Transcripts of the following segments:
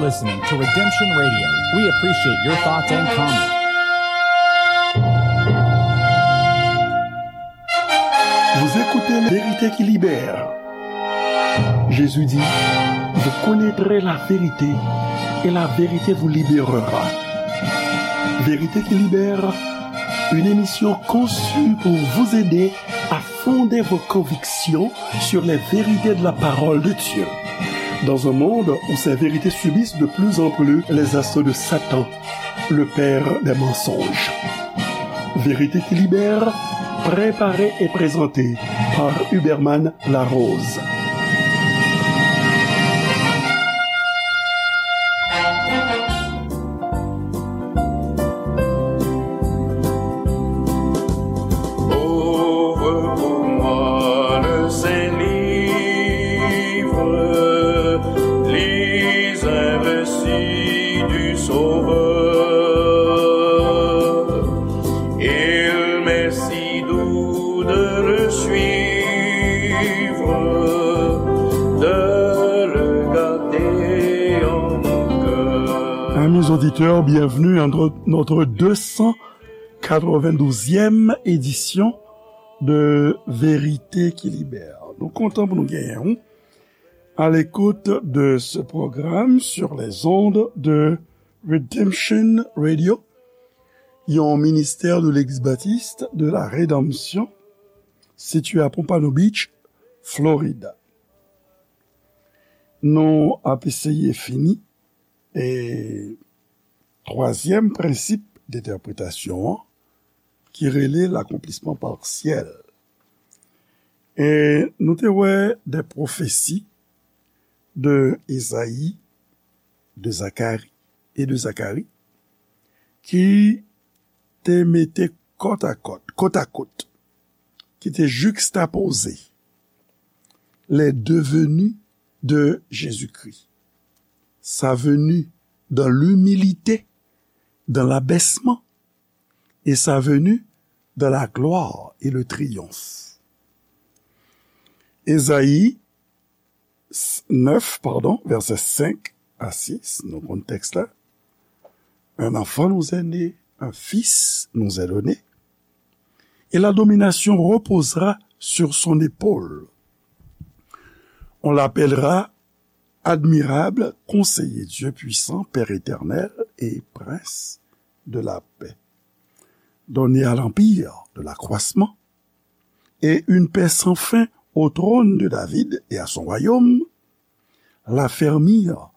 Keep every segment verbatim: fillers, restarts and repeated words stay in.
Listening to Redemption Radio. We appreciate your thoughts and comments. Vous écoutez La Vérité qui libère. Jésus dit, vous connaîtrez la vérité et la vérité vous libérera. Vérité qui libère, une émission conçue pour vous aider à fonder vos convictions sur les vérités de la parole de Dieu. Dans un monde où ces vérités subissent de plus en plus les assauts de Satan, le père des mensonges. Vérité qui libère, préparée et présentée par Huberman Larose. Ouvre pour moi le saint livre, lis un récit du Sauveur. Il m'est si doux de le suivre, de le garder en mon cœur. Amis auditeurs, bienvenue à notre, notre deux cent quatre-vingt-douzième édition de Vérité qui Libère. Nou kontan pou nou genyen w à l'écoute de ce programme sur les ondes de Redemption Radio, yon ministè de Legliz Batis de la Redanmsyon, sitiye à Pompano Beach, Florida. Nou ap eseye fini e twazyèm prensip dentèpretasyon an, ki rele l'accomplissement partiel. E nou te wè de pwofesi de Ezayi, de Zakari e de Zakari ki te mete kòt a kòt, kot a kot, ki te jikstapoze les deux venues de Jésus-Christ. Sa venu dans l'humilité, dans l'abaissement, et sa venu dans la gloire et le triomphe. Ezayi neuf, pardon, vèsè cinq à six, nou konn tèks la. Un enfant nous est né, un fils nous est donné, et la domination reposera sur son épaule. On l'appellera admirable, conseiller, Dieu puissant, Père éternel et prince de la paix. Donné à l'empire de l'accroissement et une paix sans fin au trône de David et à son royaume, l'affermir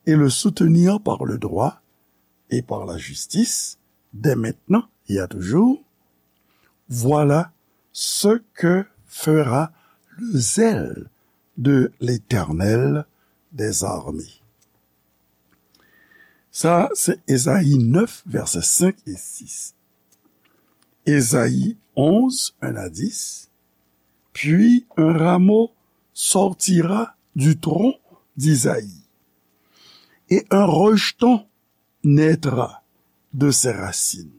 et le soutenir par le droit et par la justice, dès maintenant et à toujours. Voilà ce que fera le zèle de l'Éternel des armées. Sa, se Ezayi neuf, vèsè cinq et six. Ezayi onze, un à dix. Puis un rameau sortira du tronc d'Isaïe, et un rejeton naîtra de ses racines.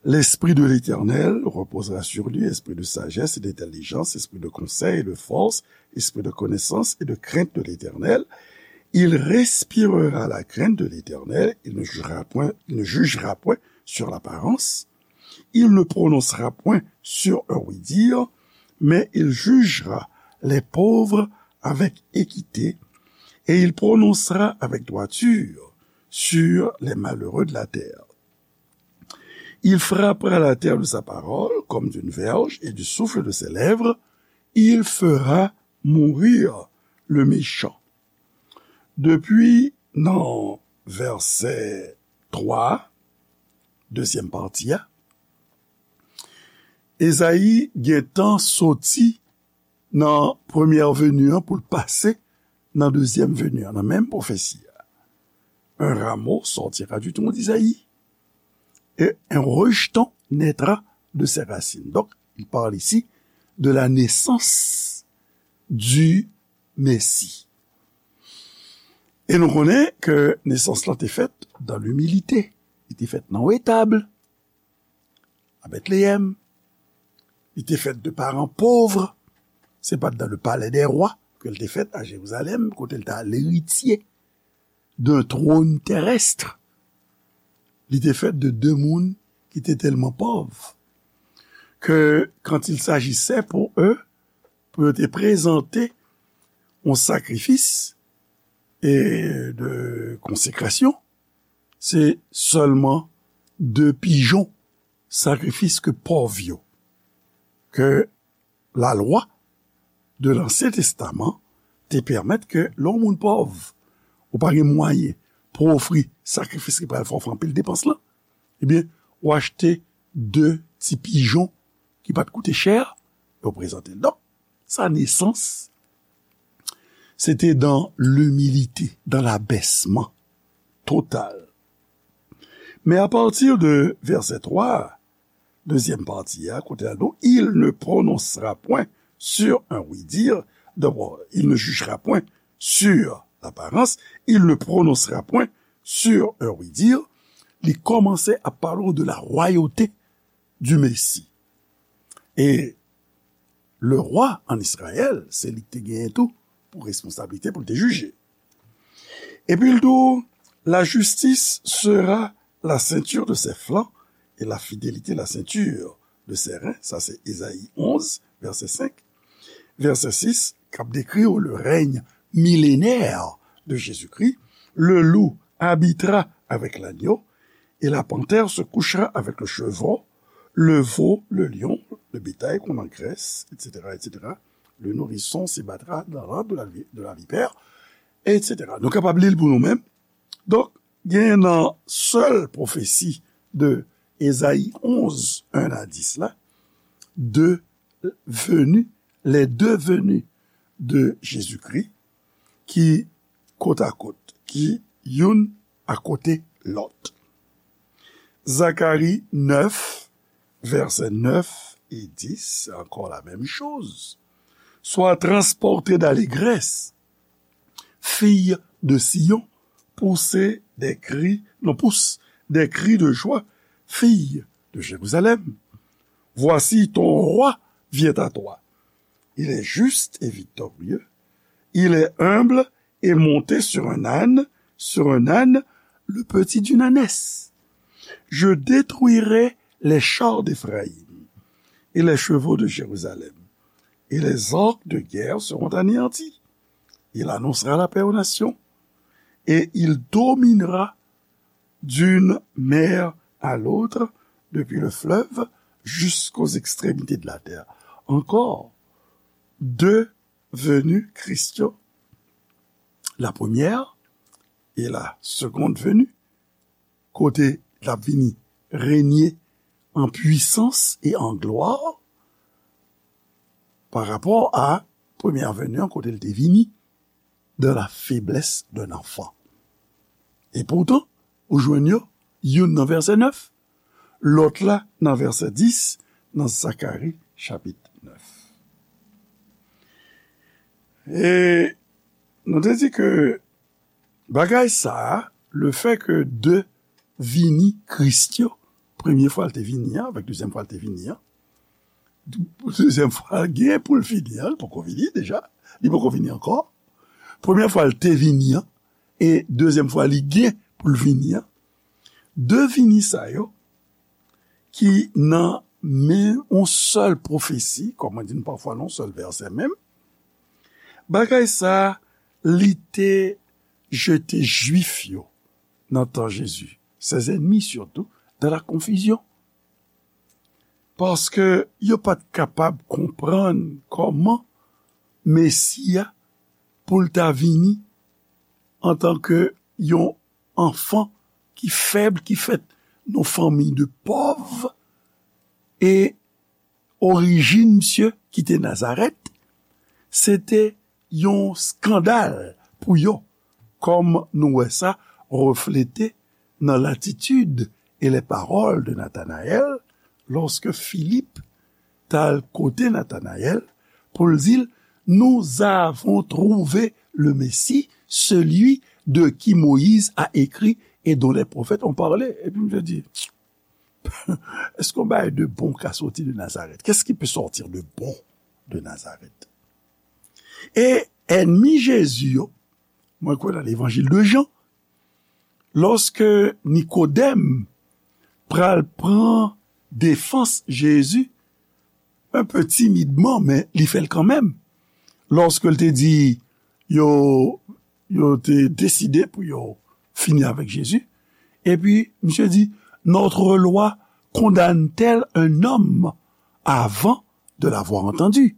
L'Esprit de l'Éternel reposera sur lui, esprit de sagesse et d'intelligence, esprit de conseil et de force, esprit de connaissance et de crainte de l'Éternel. Il respirera la crainte de l'Éternel, il ne jugera point, il ne jugera point sur l'apparence, il ne prononcera point sur un oui-dire, mais il jugera les pauvres avec équité, et il prononcera avec droiture sur les malheureux de la terre. Il frappera la terre de sa parole comme d'une verge, et du souffle de ses lèvres, il fera mourir le méchant. Depi nan vèsè twa, dezyèm pati a, Ezayi gentan soti nan premyè veni an pou l pase nan dezyèm veni an, nan menm pwofesi a. Un rameau sortira du tronc d'Isaïe, et un rejeton naîtra de ses racines. Donc, il parle ici de la naissance du Messie. E nou konnen ke nesans lan te fèt dans l'humilité. Li te fèt nan etab, a Bètleyèm. Li te fèt de paran pov. Se pa t dans le palais des rois ke l te fèt a Jerizalèm, kote l ta leritye d'un trône terrestre. Li te fèt de de moun ki te tèlman pòv ke quand il s'agissait pour eux, pou yo te prezante yon sakrifis e de konsekrasyon, se sèlman de pijon sakrifis ke pòv yo, ke lalwa de Lansyen Testaman te pèmèt ke lè yon moun pòv, ou pa gen mwayen pou ofri sakrifis ki pral fè w fè anpil depans lan, ebyen, ou achte de ti pijon ki pa t koute chè, yo prezante l. Donk, sa nesans, se te dans l'humilité, dans l'abaissement total. Men apati de vèsè twa, dezyèm pati a, kote a, donc, il ne prononcera point sur un oui-dire, d'abord, il ne jugera point sur l'apparence, il ne prononcera point sur un oui-dire, li kòmanse ap pale w de la royauté du Messie. E le roi en Israël, se li ki te genyen tou pou responsablite pou l te jije. Epi l di w, la justice sera la ceinture de ses flancs et la fidélité la ceinture de ses reins. Sa se Ezayi onz, vèsè senk. Vèsè sis, k ap dekri w le règne millénaire de Jésus-Christ. Le loup habitera avec l'agneau et la panthère se couchera avec le chevreau, le veau, le lion, le bétail qu'on engraisse, et cetera, et cetera. Le nourrisson se battra dans l'antre de la, vi- de la vipère, et cetera. Nou kapab li l pou nou menm. Donk, gen nan sèl pwofesi de Ezayi onz, en a dis la, de veni, les deux venues de Jésus-Christ, ki kot a kot, ki youn akote lòt. Zacharie neuf, versets neuf et dix, c'est encore la même chose. Sois transporté d'allégresse, fille de Sion, poussez des cris, non, pousse des cris de joie, fille de Jérusalem. Voici ton roi vient à toi. Il est juste et victorieux. Il est humble et monté sur un âne, sur un âne, le petit d'une ânesse. Je détruirai les chars d'Éphraïm et les chevaux de Jérusalem, et les orques de guerre seront anéantis. Il annoncera la paix aux nations, et il dominera d'une mer à l'autre, depuis le fleuve jusqu'aux extrémités de la terre. Encore, deux venues Christian, la première et la seconde venue, kote l ap vini renye an pwisans e an glwa, pa rapò a premyè veni an, kote l te vini dans la faiblesse d'un enfant. E poutan, ou jwenn yo, youn nan vèsè nèf, lòt la nan vèsè dis, nan Zakari chapit nèf. E nou te di ke bagay sa a, le fè ke de vini Kris yo, premye fwa l te vini an, avèk dezyèm fwa l te vini an, dezyèm fwa l gen pou l vini an, li poko vini deja, li poko vini ankò. Premyè fwa l te vini an, e dezyèm fwa li gen pou l vini an. De vini sa yo, ki nan men yon sèl pwofesi, kòm mwen di n pafwa nan yon sèl vèsè menm, bagay sa a, li te jete Jwif yo nan tan Jezi, ses ennemis surtout, dans la confusion. Paske yo pa t kapab konprann kòman Mesi a pou l ta vini antanke yon anfan ki fèb, ki fèt nan fanmi de pòv, e orijin misye ki te Nazarèt, se te yon eskandal pou yo, kòm nou wè sa reflete nan latitid e les paroles de Nathanaël, lòske Filip t al kote Nathanaël pou l di l, nous avons trouvé le Messie, celui de qui Moïse a écrit et dont les prophètes ont parlé. Epi misye di, est-ce qu'on bagay de bon ka soti de Nazareth? Qu'est-ce qui peut sortir de bon de Nazareth? E ènmi Jezi yo, mwen kwè nan levanjil de Jan, Lòske Nikodèm pral pran defans Jezi, un peu timidman, men li fè l kanmenm. Lòske l te di, yo, yo te deside pou yo fini avèk Jezi, epi misye di, notre loi condamne-t-elle un homme avant de l'avoir entendu?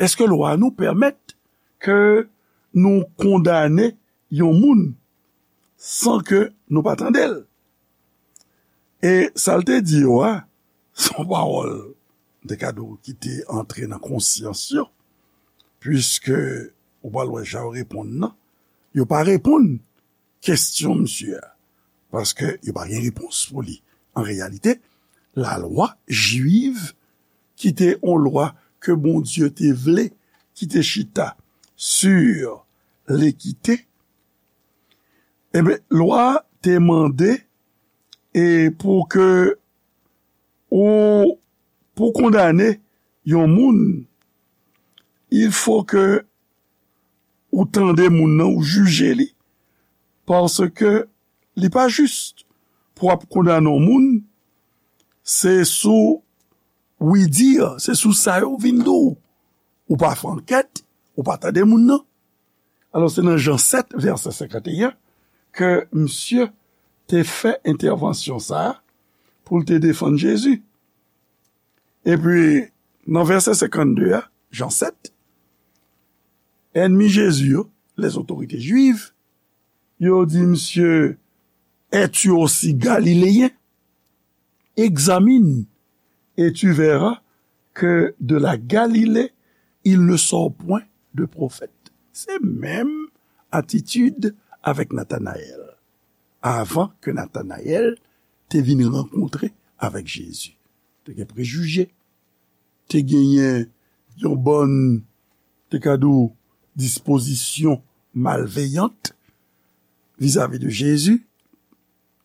Èske lwa nou pèmèt ke nou kondane yon moun san ke nou pa tande l? E sa l te di yo a, se yon pawòl, m te ka di w, ki te antre nan konsyans yo, piske ou pral wè jan yo reponn nan, yo pa reponn kesyon misye a, paske yo pa gen repons pou li. An reyalite, lalwa jwiv, ki te yon lwa ke Bondye te vle, ki te chita sur lekite, ebyen, lwa a te mande e pou ke ou, pou kondane yon moun, il faut que ou tande moun nan, ou jije li, paske li pa jis pou w ap kondane yon moun, se sou wi di, se sou sa yo vin di w. Ou pa fè ankèt, ou pa tande moun nan. Alò, se nan Jan sèt, vèsè senkanteyen, ke misye te fè entèvansyon sa a pou l te defann Jezi. Epi, nan vèsè senkannde a, Jan sèt, ènmi Jezi yo, les autorités juives, yo di misye, es-tu aussi galiléen? Examine, et tu verras que de la Galilée, il ne sort point de prophète. Se menm atitid avèk Natanayèl. Avan ke Natanayèl te vin rankontre avèk Jezi, te gen prejije, te genyen yon bòn, te ka di w, dispozisyon malveyant vizavi de Jezi,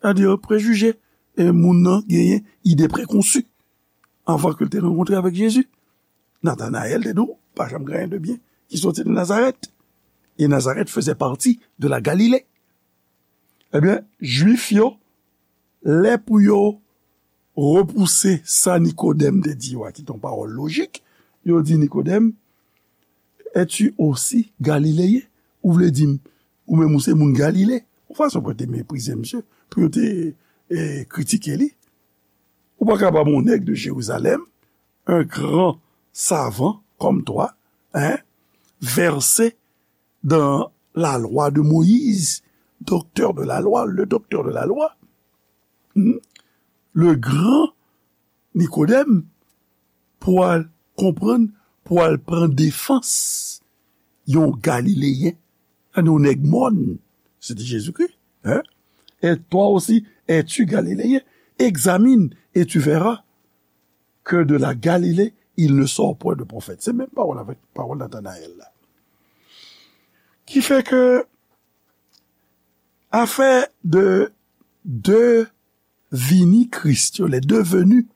sètadi prejije, e moun nan genyen ide prekonsi avan ke l te rankontre avèk Jezi. Natanayèl te di w, pa janm gen anyen de byen ki soti de Nazarèt. E Nazarèt faisait partie de la Galilée. Ebyen, Jwif yo, lè pou yo repouse sa Nikodèm te di yo a, ki te yon pawòl lojik, yo di Nikodèm, es-tu aussi galiléen? Ou vle di m, ou menm ou se moun Galile? Yon fason pou yo te meprize misye, pou yo te e, kritike li. Ou pa kapab yon nèg de Jérusalem, un grand savant comme toi, hein, versé dans la loi de Moïse, docteur de la loi, le docteur de la loi, hmm, le grand Nikodèm, pou al konprann, pou al pran defans yon Galileyen, yon nèg mòn, se te Jezikri, hein? Et toi aussi, es-tu galiléen? Examine, et tu verras que de la Galilée, il ne sort point de prophète. Se menm pawòl avèk pawòl Natanayèl la. Ki fè ke afè de de vini Kris yo, les deux venus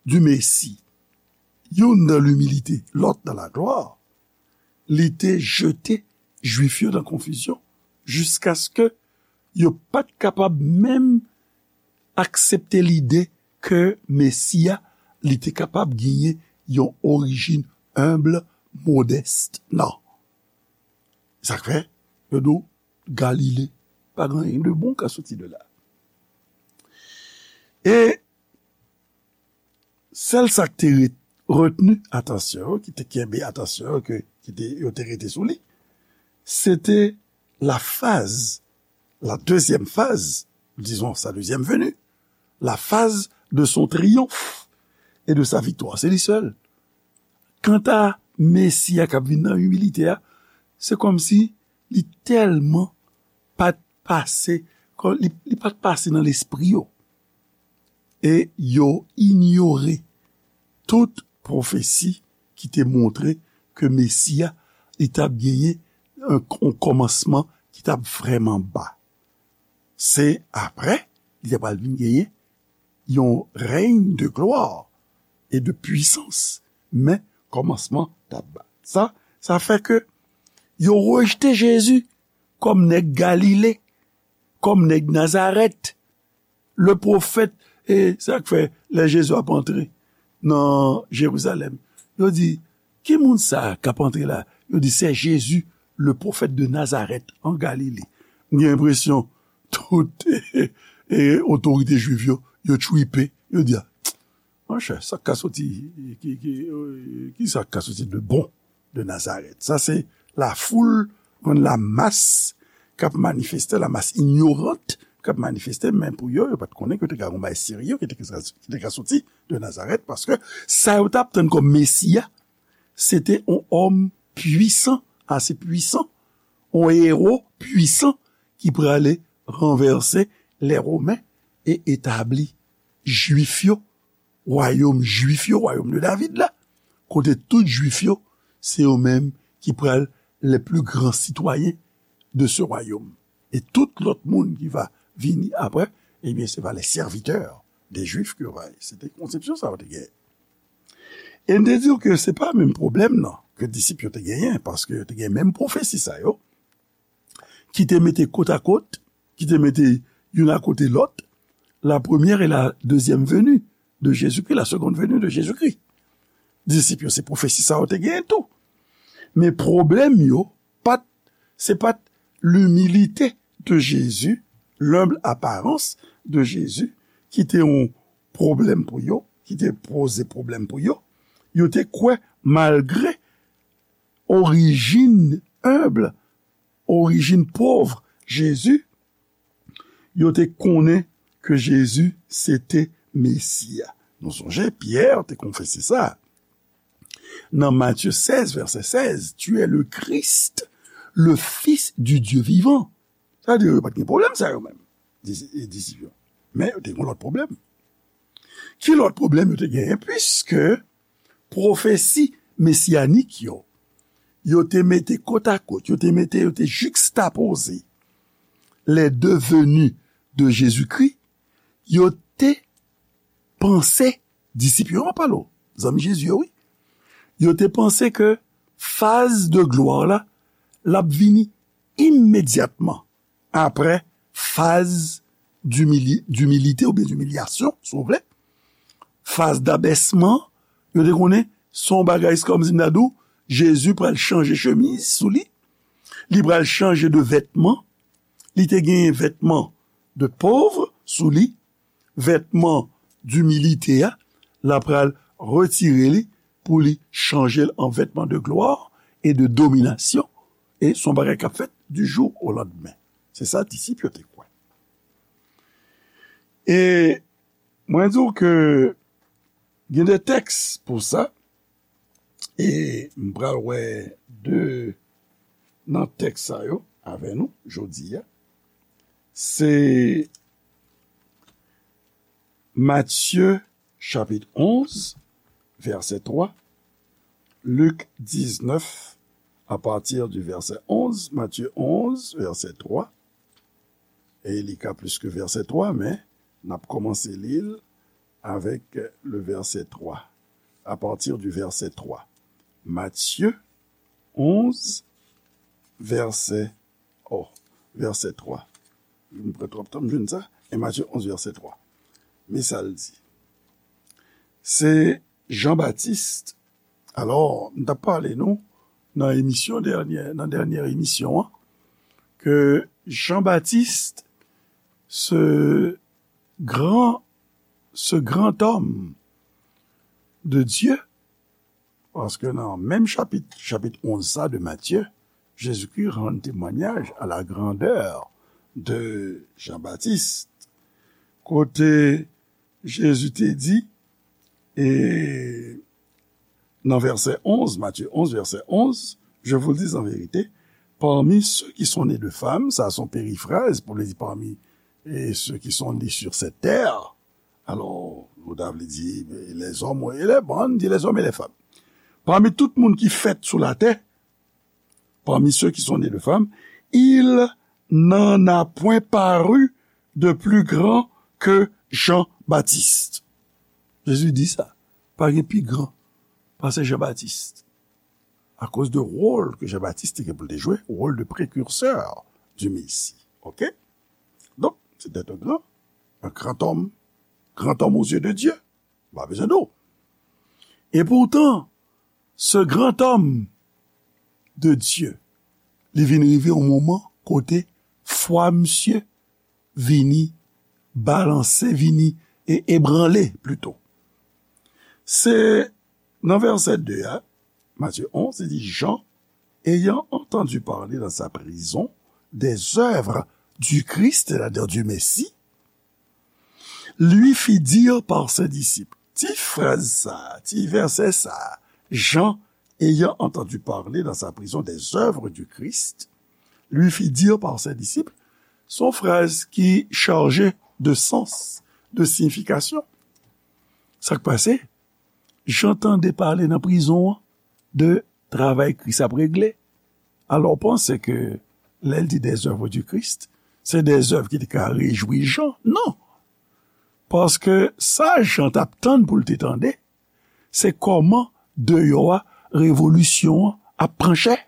du Messie, youn dans l'humilité, l'autre dans la gloire, li te jete Jwif yo nan konfizyon, jiskaske yo pa t kapab menm aksepte lide ke Mesi a, li te kapab genyen yon orijin enb, modès. Non. Sa k fè, yo di w, Galile, pa gen anyen de bon ka soti de la. E sèl sa k te re-, retni atansyon yo, ki te kenbe atansyon yo, ke, ki te, yo te rete sou li, se te la phase, la deuxième phase, disons sa deuxième venue, la phase de son triomphe et de sa victoire. Se li sèl. Kanta Mesi a k ap vin nan imilite a, se kòmsi li tèlman pa t pase, kò-, li, li pa t pase nan lespri yo. E yo inyore tout pwofesi ki te montre ke Mesi a, li t ap genyen yon, yon kòmansman ki t ap vrèman ba. Se apre, li te pral vin genyen yon rèy de glwa e de pwisans. Men, kòmansman t ap ba. Sa, sa fè ke yo rejte Jezi kòm nèg Galile, kòm nèg Nazarèt. Le pwofèt, e sa k fè lè Jezi ap antre nan Jerizalèm, yo di, ki moun sa k ap antre la? Yo di, se Jezi, le pwofèt de Nazarèt, an Galile. M gen enpresyon tout e, e, otorite jwiv yo, yo tchwipe, yo di, a, monchè, sa k ka soti, ki, ki, ki sa k ka soti de bon de Nazarèt? Sa se lafoul, konn lamas k ap manifeste, lamas inyorant k ap manifeste, men pou yo, yo pa t konnen ke te ka gon bagay serye ki te, ki te ka soti de Nazarèt, paske sa yo t ap tann kòm Mesi a, se te yon òm pwisan, ase pwisan, yon ewo pwisan ki prale ranvèse lè Women e etabli Jwif yo, wayòm Jwif yo, wayòm de David la, kote tout Jwif yo, se yo menm ki pral les plus grands citoyens de ce royaume. E tout lòt moun ki va vini apre, ebyen, se va les serviteurs des Juifs ke yo va ye. Se te konsepsyon sa yo te genyen. E n te di w ke se pa menm pwoblèm nan ke disip yo te genyen, paske yo te gen menm pwofesi sa yo, ki te mete kot a kot, ki te mete youn akote lòt, la première et la deuxième venue de Jésus-Christ, la seconde venue de Jésus-Christ. Disip yo, se pwofesi sa yo te genyen tou. Men pwoblèm yo, pa t, se pa t l'humilité de Jésus, l'humble apparence de Jésus, ki te yon pwoblèm pou yo, ki te poze pwoblèm pou yo. Yo te kwè, malgre orijin enb, orijin pòv Jezi, yo te konnen ke Jezi se te Mesi a. Nou sonje, Pyè te konfese sa. Nan Matye sèz, vèsè sèz, Tu es le Christ, le Fils du Dieu vivant. Sa vle di, yo pa t gen pwoblèm sa yo menm, dis-, disip yo. Men yo te gen lòt pwoblèm. Ki lòt pwoblèm yo te genyen? Piske pwofesi mesiyanik yo, yo te mete kot a kot, yo te mete, yo te jikstapoze les deux venues de Jésus-Christ, yo te panse, disip yo, m ap pale w, zanmi Jezi yo, wi. Yo te panse ke faz de glwa la, l ap vini imedyatman apre faz dimili-, dimilite oubyen dimilyasyon, si w vle. Faz dabèsman, yo te konnen se yon bagay, se kòmsi m ta di w, Jezi pral chanje chemiz sou li, li pral chanje de vètman, li te genyen vètman de pòv sou li, vètman dimilite a, l ap pral retire li pou li chanje l an vètman de glwa e de dominasyon. E se yon bagay k ap fèt du jour au lendemain. Se sa disip yo te kwè. E mwen di w ke gen de tèks pou sa, e m pral wè de nan tèks sa yo avè nou jodi a. Se Matye chapit onz, vèsè twa, Lik diznèf, à partir du verset onze, Matthieu onze, verset trois, e li ka plis ke vèsè twa, men n ap kòmanse li l avèk le verset trois, à partir du verset trois. Matthieu onze, verset, oh, verset trois. M pran twòp tan, m jwenn sa. E Matthieu onze, verset trois. Men sa l di. Se Jan Batis, alò, m t ap pale nou nan emisyon dènyè, nan dènyè emisyon an, ke Jan Batis, ce grand, ce grand homme de Dieu, paske nan menm chapit, chapit onz sa de Matye, Jezikri rann temwanyaj à la grandeur de Jean-Baptiste, kote Jezi te di, e nan vèsè onz, Matthieu onze, verset onze, je vous le dis en vérité, parmi ceux qui sont nés de femmes, sa se yon perifraz pou li di parmi, e ceux qui sont nés sur cette terre, alò, nou ta vle di, les hommes et les, bon, di les hommes et les femmes. Parmi tout moun ki fèt sou latè, parmi ceux qui sont nés de femmes, il n'en a point paru de plus grand que Jean-Baptiste. Jezi di sa, pa gen pi gran pase Jan Batis. Akoz de wòl ke Jan Batis te gen pou l te jwe, wòl de precurseur du Messie. Oke? C'était un grand, un grand homme, grand homme aux yeux de Dieu. Pa bezwen di w. Et pourtant, ce grand homme de Dieu, li vin rive yon moman kote fwa misye vini balanse, vini e ebranle plito. Se nan vèsè de a, Matthieu onze, li di, Jean, ayant entendu parler dans sa prison des œuvres du Christ, c'est-à-dire du Messie, lui fit dire par ses disciples. Ti fraz sa, ti vèsè sa, Jean, ayant entendu parler dans sa prison des œuvres du Christ, lui fit dire par ses disciples, se yon fraz ki chaje de sans, de siyifikasyon. Sa k pase? Jan tande pale nan prizon an de travay Kris ap regle. Alò, w panse ke lè l di des œuvres du Christ, se des œuvres ki te ka rejwi Jan? Non. Paske sa Jan t ap tann pou l te tande, se kòman deyò a revolisyon an ap pran chè.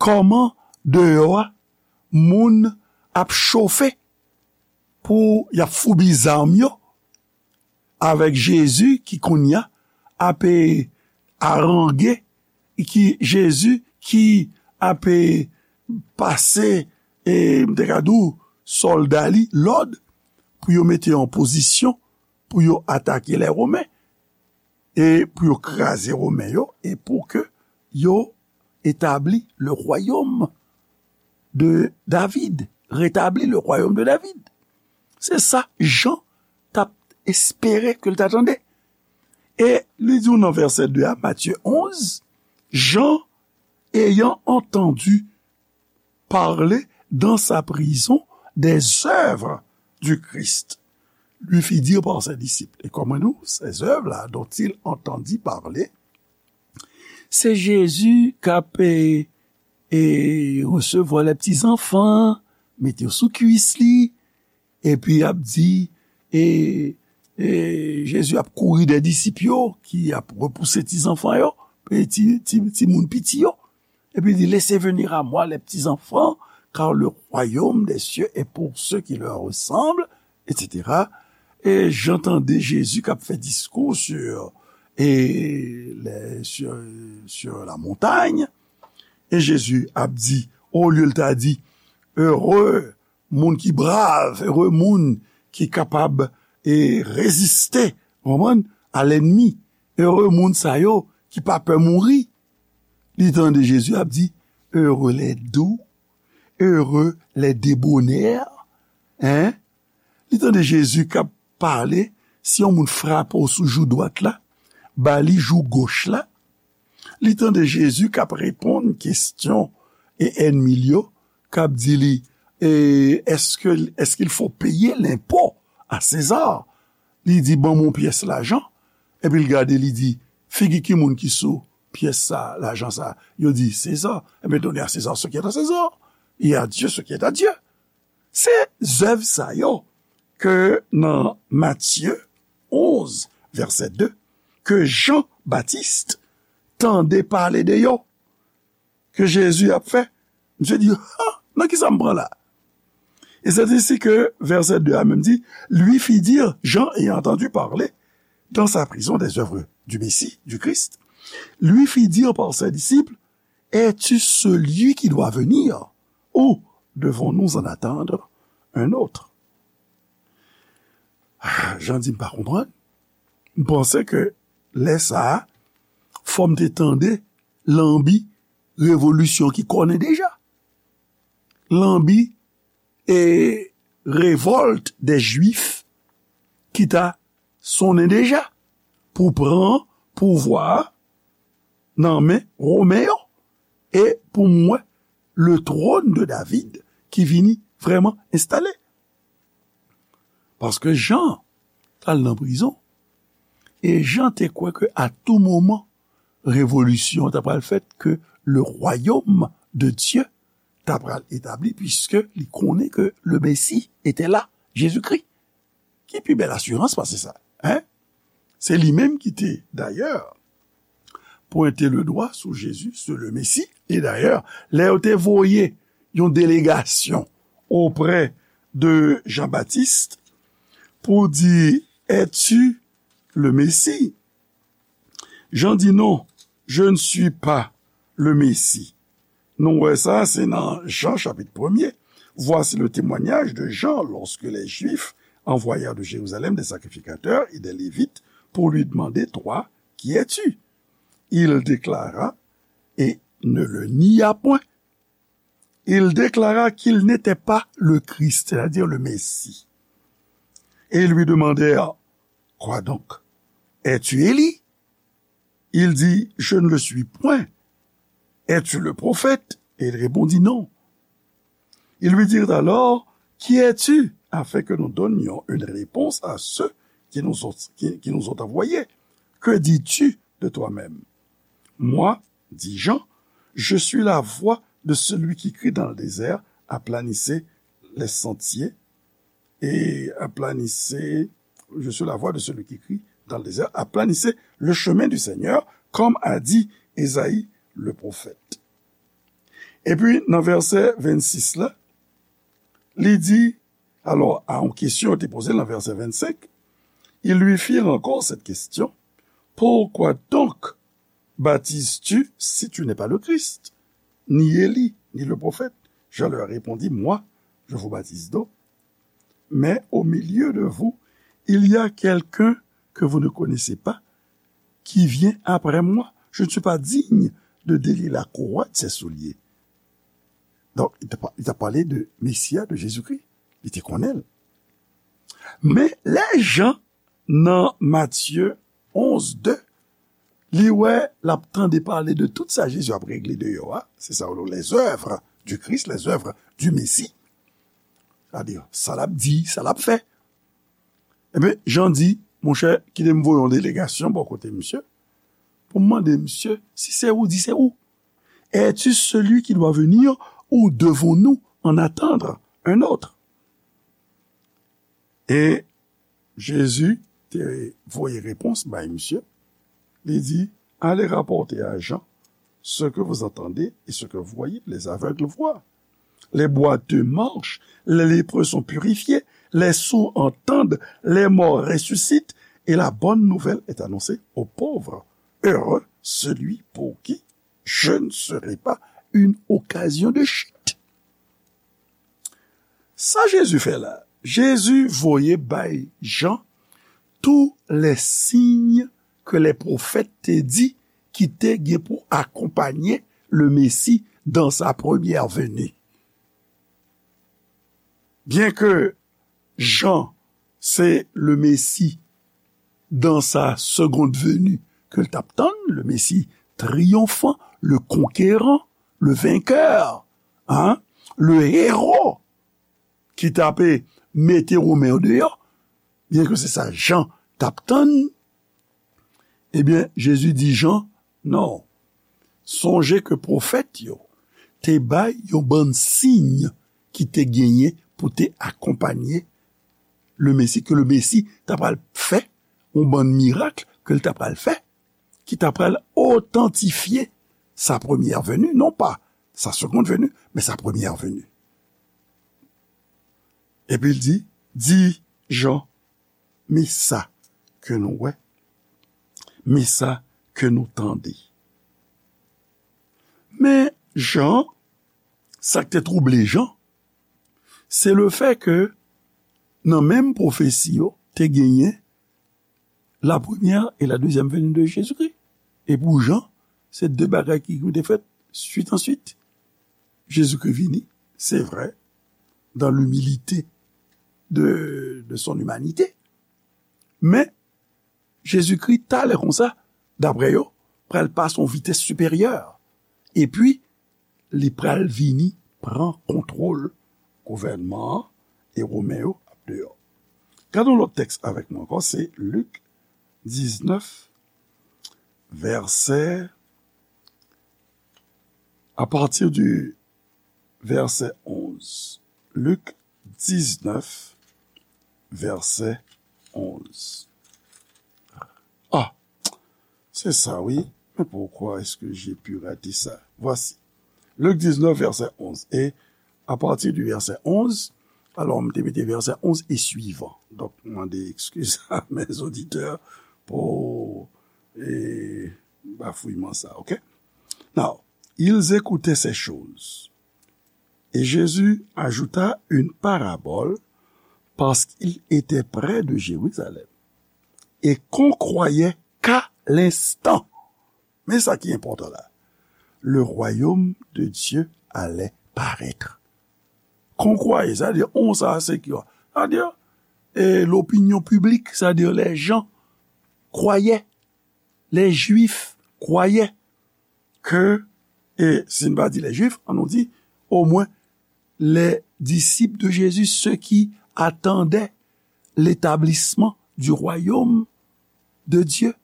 Kòman deyò a moun ap chofe pou y ap foubi zam yo avèk Jezi ki kounye a ap, e, arange, ki Jezi ki ap, e, pase, e, m te ka di w, sòlda li lòd pou yo mete yo an pozisyon pou yo atake lè Women, e pou yo kraze Women yo, e pou ke yo etabli le royaume de David, rétabli le royaume de David. Se sa Jan t ap espere ke l ta tande. E li di w nan vèsè de a, Matthieu onze, Jean, ayant entendu parler dans sa prison des œuvres du Christ, lui fit dire par ses disciples. E kòman nou, ces œuvres-là dont il entendit parler, se Jezi k ap, e, e, resevwa lè ti zanfan, mete yo sou kwis li, epi ap di, e, e, Jezi ap kouri dè disip yo ki ap repouse ti zanfan yo, e ti, ti, ti moun piti yo. Epi li di, laissez venir à moi les petits enfants, car le royaume des cieux est pour ceux qui leur ressemblent, et cetera. E Jan tande Jezi k ap fè diskou sur, e, les, sur, sur la montagne. E Jezi ap di, olye l ta di, heureux moun ki brav, ere moun ki kapab, e, reziste, konprann, a lènmi. Ere moun sa yo ki pa pè mouri. Li tande Jezi ap di, heureux les doux, heureux les débonnaires. Hein? Li tande Jezi k ap pale, si yon moun frape w sou jou dwat la, ba li jou goch la. Li tande Jezi k ap reponn kesyon e ènmi l yo, k ap di li, e, est-ce que, est-ce qu'il faut payer l'impôt à César? Li di, ban mwen yon pyès lajan. Epi l gade, li di, figi ki moun ki sou pyès sa, lajan sa? Yo di, César. Ebyen, donnez à César ce qui est à César, et à Dieu ce qui est à Dieu. Se zèv sa yo ke nan Matye onz, vèsè de, ke Jan Batis tande pale de yo, ke Jezi ap fè. Misye di, ha, nan ki sa m pran la? E c'est ainsi que, verset deux a menm di, lui fit dire, Jean ayant entendu parler dans sa prison des œuvres du Messie, du Christ, lui fit dire par ses disciples, es-tu celui qui doit venir, ou devons-nous en attendre un autre? Ah, Jan di, m pa konprann. M panse ke lè sa a, fò m te tande lanbi revolisyon ki konnen deja. Lanbi e revòlt dè Jwif ki ta sonnen deja pou pran pouvwa a nan men Women yo e pou m wè le trône de David ki vini vrèman enstale. Paske Jan t al nan prizon e Jan te kwè ke a tou moman revolisyon an ta pral fèt, ke le royaume de Dieu ta pral etabli, puisque li konnen ke le Messie était là, Jezikri. Ki pi bèl asirans pase sa, hein? Se li menm ki te, dayè, pwente le dwa sou Jezi, sou le Mesi. E dayè, lè yo te voye yon delegasyon oprè de Jean-Baptiste pour dire, es-tu le Messie? Jean dit non, je ne suis pas le Messie. Nou wè sa, se nan Jan chapit premye. Voici le témoignage de Jean lorsque les Juifs envoyèrent de Jérusalem des sacrificateurs et des Lévites pour lui demander, toi, qui es-tu? Il déclara et ne le nia point. Il déclara qu'il n'était pas le Christ, c'est-à-dire le Messie. Et ils lui demandèrent, quoi donc? Es-tu Élie? Il dit, je ne le suis point. Es-tu le prophète? Et il répondit, non. Ils lui dirent alors, qui es-tu? Afin que nous donnions une réponse à ceux qui nous ont, qui, qui nous ont envoyés. Que dis-tu de toi-même? Moi, dit Jean, je suis la voix de celui qui crie dans le désert, aplanissez les sentiers, et aplanissez, je suis la voix de celui qui crie dans le désert, aplanissez le chemin du Seigneur, comme a dit Ésaïe le prophète. Epi, nan vèsè vennsis la, li di, alò, a yon kesyon yo te poze l nan vèsè vennsenk, ils lui firent encore cette question, pourquoi donc baptises-tu si tu n'es pas le Christ, ni Élie, ni le prophète? Jean leur répondit, moi, je vous baptise d'eau, mais au milieu de vous, il y a quelqu'un que vous ne connaissez pas, qui vient après moi. Je ne suis pas digne de délier la courroie de ses souliers. Donk, li t ap, li t ap pale de Mesi a, de Jezikri. Li te konnen l. Men, lè Jan, nan Matye onz de, li wè, l ap tande pale de tout sa Jezi ap regle deyò a, se sa yo rele les œuvres du Christ, les œuvres du Messie. Sa di, sa l ap di, sa l ap fè. Ebyen, Jan di, monchè, kite m voye yon delegasyon bò kote misye, pou m mande misye si se ou di se ou. Es-tu celui qui doit venir ou devons-nous en attendre un autre? E Jezi te voye repons bay misye. Li di, allez rapporter à Jean ce que vous entendez et ce que vous voyez. Les aveugles voient, les boiteux marchent, les lépreux sont purifiés, les sourds entendent, les morts ressuscitent, et la bonne nouvelle est annoncée aux pauvres. Heureux celui pour qui je ne serai pas une occasion de chute. Sa Jezi fè la, Jezi voye bay Jan tous les signes que les prophètes te di ki te gen pou akonpanye le Messie dans sa première venue. Byen ke Jan se le Messie dans sa seconde venue ke l t ap tann, le Messie triomphant, le conquérant, le vainqueur, hein, le héros ki t ape mete Women yo deyò, byen ke se sa Jan t ap tann, ebyen, Jezi di Jan, non, sonje ke pwofèt yo te bay yon bann siy ki te genyen pou te akonpanye le Mesi, ke le Mesi ta pral fè, yon bann mirak ke l ta pral fè, ki ta pral otantifye sa première venue, non pa sa seconde venue, men sa première venue. Epi l di, di Jan, men sa ke nou wè, men sa ke nou tande. Men Jan, sa k te twouble Jan, se le fè ke nan menm pwofesi yo, te genyen la première et la deuxième venue de Jésus-Christ. E pou Jan, se de bagay ki, ki te fèt swit an swit. Jezikri vini, se vrè, dans l'humilité de, de son humanité. Men, Jezikri, talè konsa, daprè yo, pral pase yon vitès siperyè. Epi, li pral vini pran kontwòl gouvènman an e Women yo ap deyò. Gade yon lòt tèks avèk mwen ankò, se Lik diznèf, vèsè, à partir du verset onze. Lik diznèf, vèsè onz. Ah, c'est ça, oui. Mais pourquoi est-ce que j'ai pu rater ça? Voici. Luc dix-neuf, verset onze. Et à partir du verset onze, Alò, m te mete vèsè onz e swivan. Donk, m mande ekskiz a mes auditeurs pou e, bafouyman sa, ok? Now, ils écoutaient ces choses. Et Jésus ajouta une parabole parce qu'il était près de Jérusalem et qu'on croyait qu'à l'instant, men sa ki enpòtan la, le royaume de Dieu allait paraître. Qu'on croyait, sa vle di, on sa se ki, sa vle di, e, l'opinion publique, sa vle di, les gens croyaient, les Juifs croyaient que, e si n pa di les Juifs, an nou di, au moins, les disciples de Jésus, ceux qui attendaient l'établissement du royaume de Dieu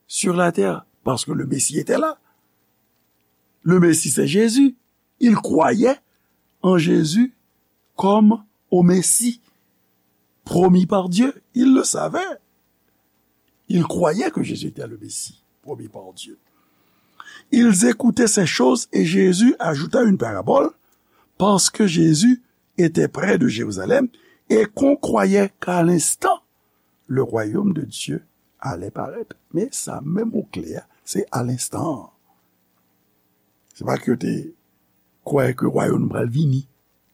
sur la terre, parce que le Messie était là. Le Messie, c'est Jésus. Ils croyaient en Jésus comme au Messie promis par Dieu. Ils le savaient. Ils croyaient que Jésus était le Messie promis par Dieu. Ils écoutaient ces choses et Jésus ajouta une parabole parce que Jésus était près de Jérusalem et qu'on croyait qu'à l'instant, le royaume de Dieu allait paraître. Men sa menm mo kle a, se à l'instant. Se pa ke yo te kwè ke wayòm pral vini.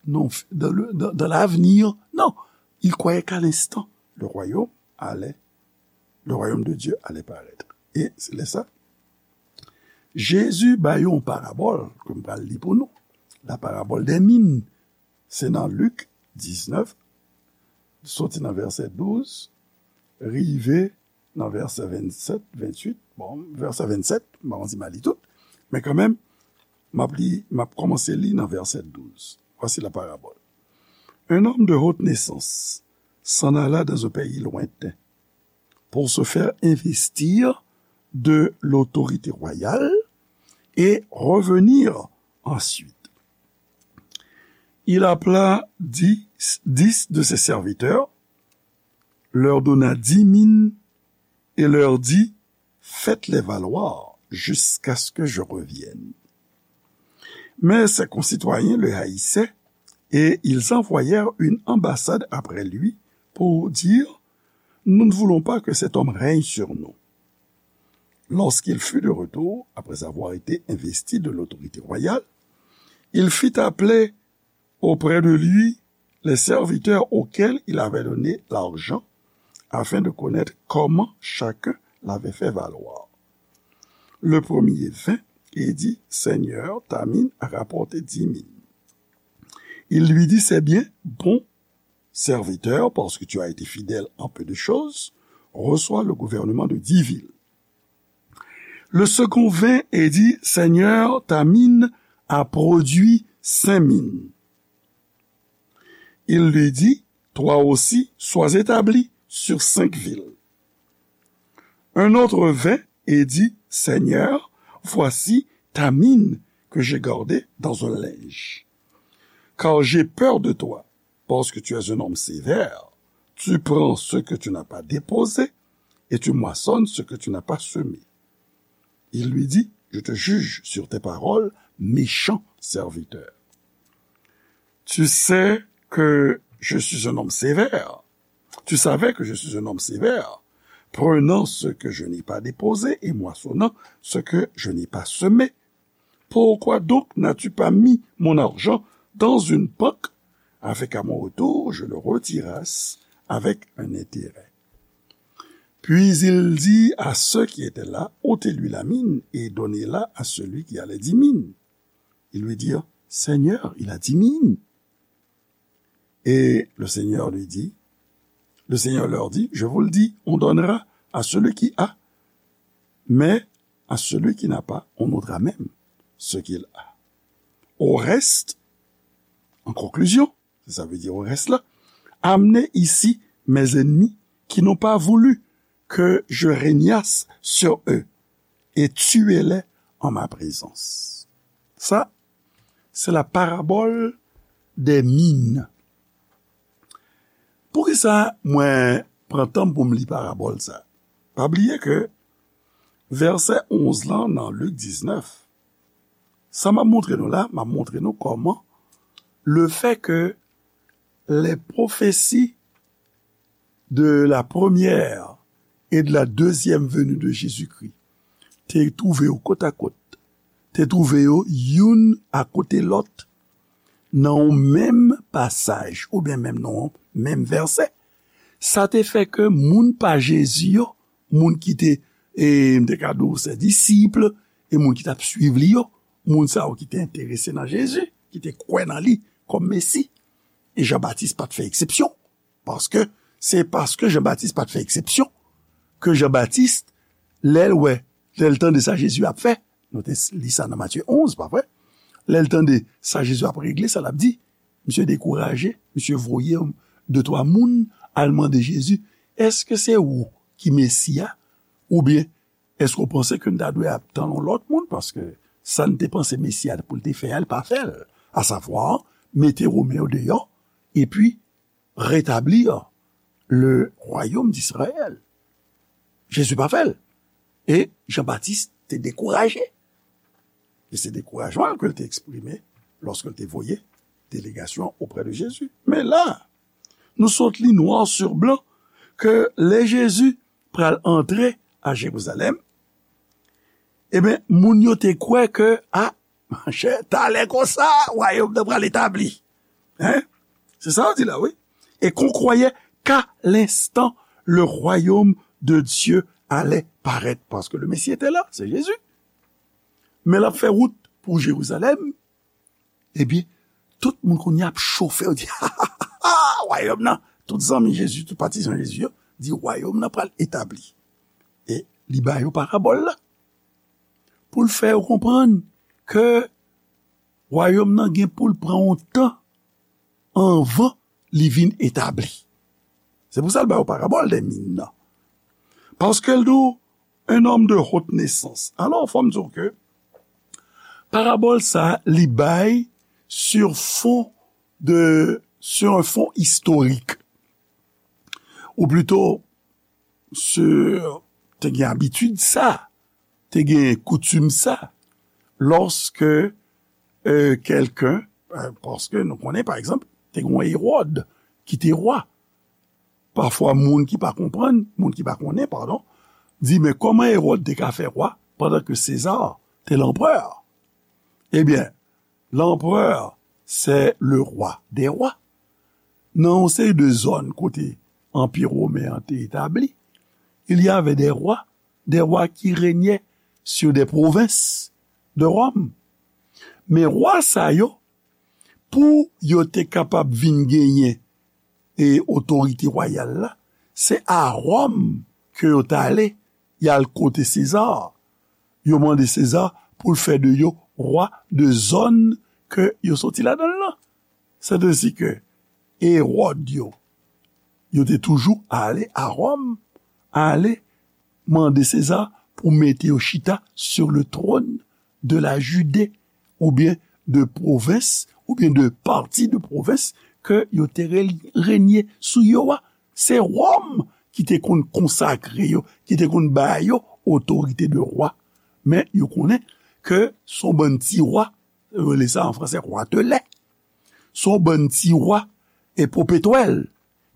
Non, dans le, dans, dans l'avenir, non. Ils croyaient qu'à l'instant, le royaume allait, le royaume de Dieu allait paraître. E se lè sa, Jezi ba yo yon parabòl ke m pral li pou nou. La parabole des mines. Se nan Lik diznèf, soti nan vèsè douz, rive nan vèsè vennsèt, venntuit. Bon, vèsè vennsèt, m pa konn si m a li tout, men kanmenm, m ap li, m ap kòmanse li nan vèsè douz. Voici la parabole. Un homme de haute naissance s'en alla dans un pays lointain pour se faire investir de l'autorité royale et revenir ensuite. Il appela dix, dix de ses serviteurs, leur donna dix mines et leur dit : « Faites-les valoir jusqu'à ce que je revienne. » Mais ses concitoyens le haïssaient et ils envoyèrent une ambassade après lui pour dire : « Nous ne voulons pas que cet homme règne sur nous. » Lorsqu'il fut de retour, après avoir été investi de l'autorité royale, il fit appeler auprès de lui les serviteurs auxquels il avait donné l'argent, afin de connaître comment chacun l'avait fait valoir. Le premier vint et dit : « Seigneur, ta mine a rapporté dix mines. » Il lui dit : « C'est bien, bon serviteur, parce que tu as été fidèle en peu de choses, reçois le gouvernement de dix villes. » Le second vint et dit : « Seigneur, ta mine a produit cinq mines. » Il lui dit : « Toi aussi, sois établi sur cinq villes. » Un autre vint et dit : « Seigneur, voici ta mine que j'ai gardée dans un linge. Car j'ai peur de toi, parce que tu es un homme sévère. Tu prends ce que tu n'as pas déposé et tu moissonnes ce que tu n'as pas semé. » Il lui dit : « Je te juge sur tes paroles, méchant serviteur. Tu sais que je suis un homme sévère. Tu savais que je suis un homme sévère, prenant ce que je n'ai pas déposé et moissonnant ce que je n'ai pas semé. Pourquoi donc n'as-tu pas mis mon argent dans une banque, afin qu'à mon retour, je le retirasse avec un intérêt ? » Puis il dit à ceux qui étaient là : « Ôtez-lui la mine et donnez-la à celui qui a les dix mines. » Ils lui dirent : « Seigneur, il a dix mines. » Et le Seigneur lui dit, le Seigneur leur dit : « Je vous le dis, on donnera à celui qui a, mais à celui qui n'a pas, on ôtera même ce qu'il a. Au reste, en conclusion, » c'est ça veut dire au reste là, « amenez ici mes ennemis qui n'ont pas voulu que je régnasse sur eux et tuez-les en ma présence. » Sa, se la parabole des mines. Poukisa mwen pran tan pou m li parabòl sa? Pa bliye ke vèsè onz lan nan Lik diznèf, sa m ap montre nou la, m ap montre nou kòman lefètke les prophéties de la première et de la deuxième venue de Jésus-Christ te twouve yo kot a kot, te twouve yo youn akote lòt nan yon menm pasaj oubyen menm nan yon menm vèsè. Sa te fè ke moun pa Jezi yo, moun ki te, e, m te ka di w se disip, e moun ki t ap swiv li yo, moun sa yo ki te enterese nan Jezi, ki te kwè nan li kòm Mesi. E Jan Batis pa t fè eksepsyon. Paske se paske Jan Batis pa t fè eksepsyon ke Jan Batis, lè l wè, lè l tande sa Jezi ap fè, nou te li sa nan Matye onz, pa vre? Lè l tande sa Jezi ap regle, sa l ap di, misye dekouraje, misye voye de twa moun al mande Jezi, èske se ou ki Mesi a? Oubyen, èske w panse ke n ta dwe ap tann yon lòt moun? Paske sa n te panse Mesi a pou l te fè a, l pa fè l. Asavwa, mete Women yo deyò, epi rétablir le royaume d'Israël. Jezi pa fè l. E Jan Batis te dekouraje. E se dekourajman l ke l te eksprime lòske l te voye delegasyon oprè de Jezi. Men la, nou sot li noir sur blanc ke lè Jezi pral antre a Jerizalèm, ebyen, moun yo te kwè ke, a, monchè, talè konsa, wayòm nan pral etabli. Hein? Se sa yo di la, wi. Et qu'on croyait qu'à l'instant, le royaume de Dieu allait paraître. Parce que le Messie était là, c'est Jésus. Men l ap fè wout pou Jerizalèm, ebyen, tout moun kounye a ap chofe, yo di, ha, ha, ha, ha, wayòm nan, tout zanmi Jezi, tout patizan Jezi yo, di, wayòm nan pral etabli. E li ba yo parabòl la. Pou l fè yo konprann ke wayòm nan gen pou l pran yon tan anvan li vin etabli. Se pou sa l ba yo parabòl dè min nan. Paske l di w, un homme de haute naissance. Alò, fò m di w ke parabòl sa a, li bay sur fond de, sur un fond historique. Ou plito, sur, te gen abitid sa, te gen koutim sa, lòske, euh, kèlken, euh, paske nou konnen, pa egzanp, te gen yon Ewòd ki te wa. Pafwa, moun ki pa konprann, moun ki pa konnen, padon, di, men kòman Ewòd te ka fè wa pandan ke Seza te lanprè? Ebyen, l'empereur, c'est le roi des rois. Nan yon seri de zòn kote Anpi Women an te etabli, il y avait des rois, des rois qui régnaient sur des provinces de Rome. Men wa sa yo, pou yo te kapab vin genyen e otorite wayal la, se a Wòm ke yo t ale, y al kote Seza. Yo mande Seza pou l fè de yo wa de zòn ke yo soti ladan l lan. Sètadi ke Ewòd yo, yo te toujou ale a Wòm, ale mande Seza pou mete yo chita sur le trône de la Judée, oubyen de pwovens, oubyen de pati de pwovens ke yo te re-, renye sou yo a. Se Wòm ki te konn konsakre yo, ki te konn ba yo otorite de wa. Men yo konnen ke se yon bann ti wa, yo rele sa an franse, roi de lait. Se yon bann ti wa e popetwèl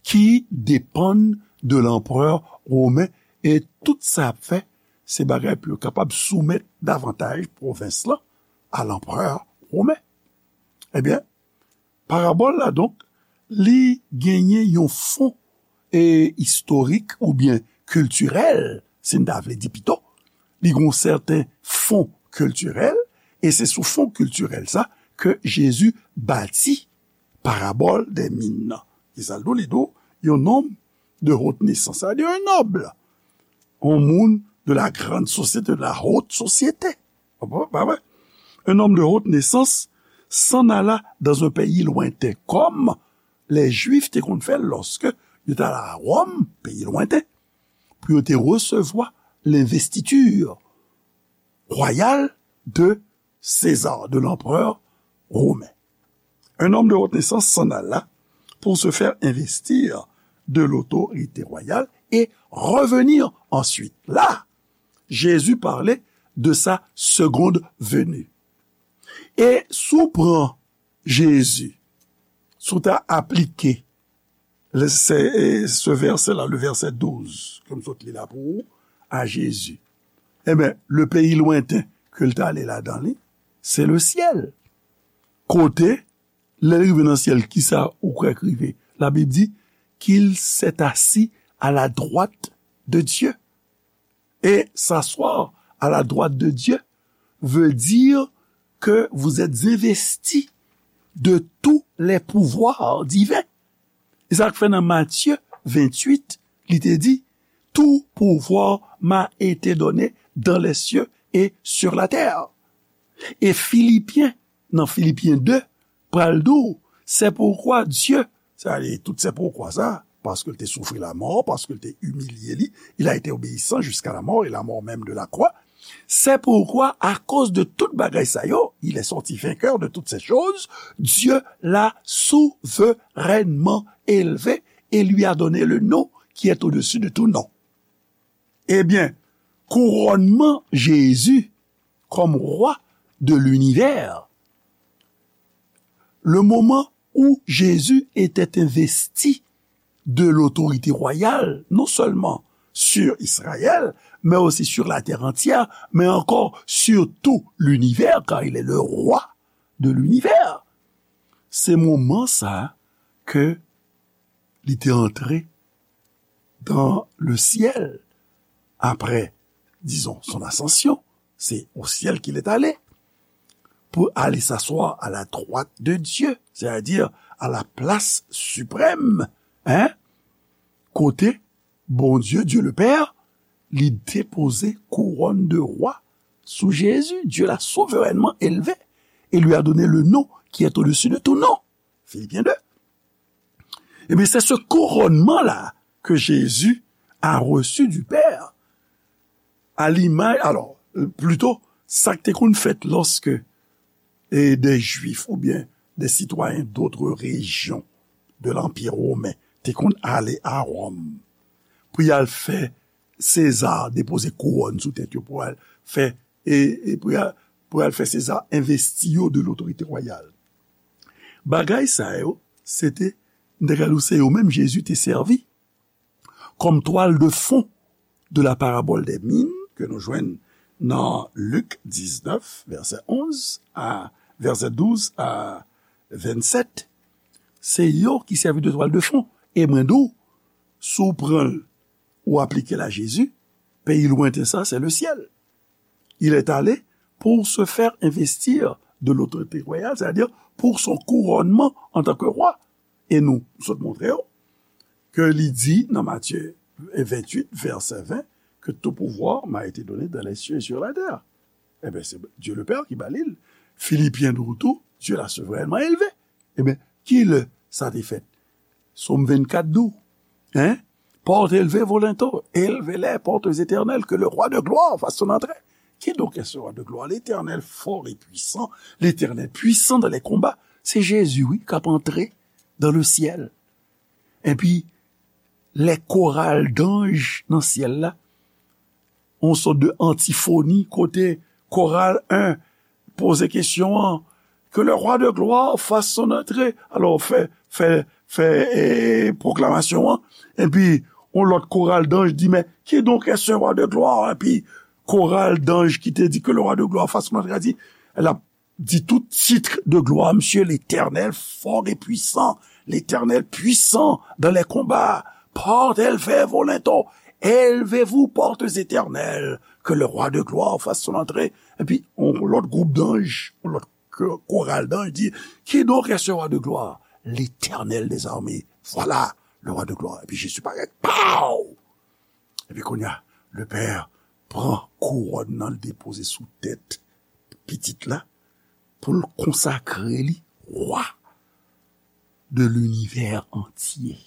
ki depann de lanprè women, e tout sa y ap fè, se bagay pou yo kapab soumèt davantaj pwovens lan a lanprè women. Ebyen, parabòl la, donk, li genyen yon fon, e, istorik oubyen kiltirèl, si n ta vle di pito. Li gen yon sèten fon kiltirèl, e se sou fon kiltirèl sa ke Jezi bati parabòl dè min nan. Kisa l di w? Li di w, yon nonm de haute naissance, sa vle di yon nòb, yon moun de la grande société, de la haute société. Pa vre? Un homme de haute naissance s'en alla dans un pays lointain. Kòm lè Jwif te konn fè l lòske yo t al a Wòm, peyi lwenten, pou yo te resevwa lenvestiti wayal de Seza, de lanprè women. Un homme de haute naissance s'en alla pour se faire investir de l'autorité royale et revenir ensuite. Là, Jésus parlait de sa seconde venue. E si w pran Jezi, si w ta aplike le, se, e, se vèsè la, le vèsè douz, ke m sot li la pou ou, a Jezi, enben, le peyi lwenten ke l t ale ladan li, se le syèl. Kote, lè l rive nan syèl, kisa ou kwè k rive? Labib di, qu'il s'est assis à la droite de Dieu. Et s'asseoir à la droite de Dieu veut dire que vous êtes investis de tous les pouvoirs divins. E sa k fè nan Matye venntuit, li te di, tout pouvoir m'a été donné dans les cieux et sur la terre. E Filipyen, nan Filipyen de, pral di w, c'est pourquoi Dieu, sa vle di tout se poukwa sa, paske l te soufri lamò, paske l te imilye li, il a été obéissant jusqu'à la mort et la mort même de la croix. C'est pourquoi, à cause de tout bagay sa yo, il est sorti vainqueur de toutes ces choses, Dieu l'a souverainement élevé et lui a donné le nom qui est au-dessus de tout nom. Ebyen, kourònman Jezi comme roi de l'univers, le moment où Jésus était investi de l'autorité royale, non seulement sur Israël, mais aussi sur la terre entière, mais encore sur tout l'univers, car il est le roi de l'univers. Se moman sa ke li te antre dans le ciel après, disons, son ascension, c'est au ciel qu'il est allé, pour aller s'asseoir à la droite de Dieu, c'est-à-dire à la place suprême, hein, kote Bondye, Dieu le Père, li depoze kouwòn de roi sou Jezi. Dieu l'a souverainement élevé et lui a donné le nom qui est au-dessus de tout nom. Filipyen de. Ebyen, se se kourònman la ke Jezi a reçu du Père. A limaj, alò, plito, sa k te konn fèt lòske, e, de Jwif oubyen de sitwayen d'autres régions de l'Empire romain te konn ale a Wòm pou y al fè Seza depoze kouwòn sou tèt yo, pou al fè, e, e pou y al, pou y al fè Seza envesti yo de l'autorité royale. Bagay sa yo, se te, m te ka di w, se yo menm Jezi te sèvi kòm twal de fon de la parabole des mines ke nou jwenn nan Lik diznèf, vèsè onz a, vèsè douz a vennsèt. Se yo ki sèvi de twal de fon. E mwen di w, si w pran l, ou aplike l a Jezi, peyi lwenten sa, c'est le ciel. Il est allé pour se faire investir de l'autorité royale, c'est-à-dire pour son couronnement en tant que roi. E nou, m sot montre w ke li di nan Matye venntuit, vèsè ven, que tout pouvoir m'a été donné dans les cieux et sur la terre. Ebyen, se Dieu le Père ki ba li l. Filipyen di w tou, Dieu l'a souverainement élevé. Ebyen, ki lè sa te fèt? Sòm vennkat di w, hein? Porte, élevez vos linteaux, élevez les portes éternelles, que le roi de gloire fasse son entrée. Qui donc est ce roi de gloire? L'Éternel fort et puissant, l'Éternel puissant dans les combats. Se Jezi, wi, k ap antre dans le ciel. Epi, lè koral danj nan syèl la, yon sòt de antifoni kote koral en poze kesyon an, que le roi de gloire fasse son entrée. Alò, fè, fè, fè, e, pwoklamasyon an. Epi, yon lòt koral danj di, mais qui donc est ce roi de gloire? Epi, koral danj ki te di que le roi de gloire fasse son entrée, a di, l ap di tout titre de gloire, monsieur l'Éternel fort et puissant, l'Éternel puissant dans les combats. Porte, élevez vos linteaux, élevez-vous, portes éternelles, que le roi de gloire fasse son entrée. Epi, yon lòt gwoup danj, yon lòt ko-, koral danj di, qui donc est ce roi de gloire? L'Éternel des armées. Voilà le roi de gloire. Epi Jezi parèt, pow! Epi kounye a, le Père pran kouwòn nan, l depoze sou tèt pitit la, pou l konsakre li roi de l'univers entier.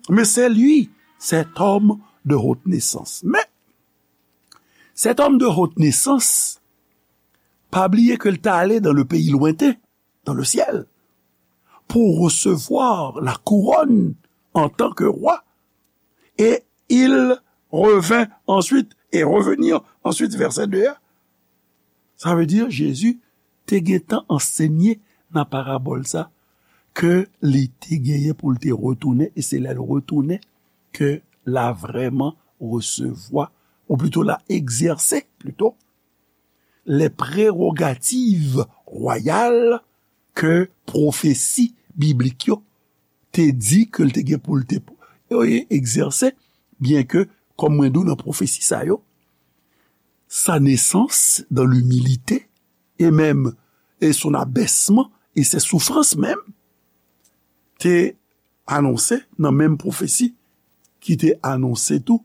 Mais c'est lui, cet homme de haute naissance. Mais cet homme de haute naissance, pa bliye ke l t ale dans le pays lointain, dans le ciel, pour recevoir la couronne en tant que roi. Et il revint ensuite, et revenir ensuite, vèsè de a. Sa vle di, Jezi te gentan ansenye nan parabòl sa, ke li te genyen pou l te retounen, e se lè l retounen ke l a vrèman resevwa, ou plito l a egzèse, plito, les prérogatives royales ke pwofesi biblik yo te di ke l te gen pou l te egzèse, byen ke, kòm mwen di w nan pwofesi sa yo, sa nesans dan limilite, e menm, e son abèsman, e se soufrans menm, te anonse nan menm pwofesi ki te anonse tou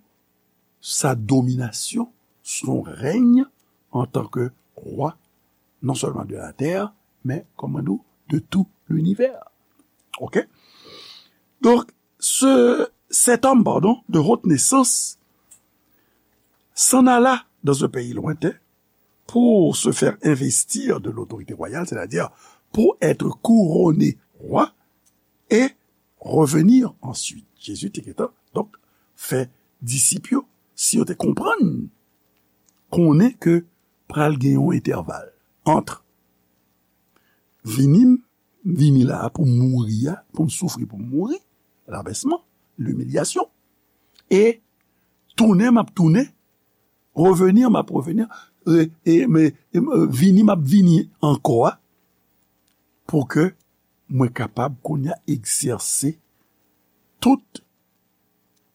sa dominasyon, son rèny antanke wa, non sèlman de la tè, men, kòman di w, de tout linivè. Oke? Donk, ce, cet homme, pardon, de haute naissance, s'en alla dans un pays lointain pour se faire investir de l'autorité royale, c'est-à-dire pour être couronné roi et revenir ensuite. Jezi te gentan, donk, fè disip yo, si yo te konprann, konnen ke pral gen yon entèval ant vini m, vini la a pou m mouri a, pou m soufri, pou m mouri, labèsman, limilyasyon, e tounen m ap tounen, reveni m ap reveni, e, e, men, e, vini m ap vini ankò a, pou ke mwen kapab kounye a egzèse tout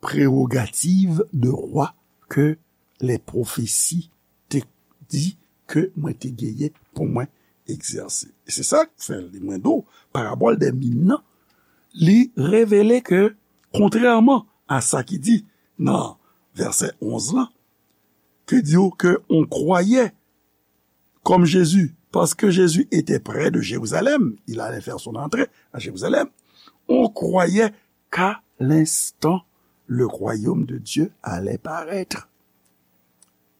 prerogativ de rwa ke lè pwofesi te di ke mwen te genyen pou mwen egzèse. E se sa k fè li, mwen di w, parabòl dè min nan, li revele ke, kontrèman a sa ki di nan vèsè onz lan, ke di w ke on croyait comme Jésus, parce que Jésus était près de Jérusalem, il allait faire son entrée à Jérusalem, on croyait qu'à l'instant, le royaume de Dieu allait paraître.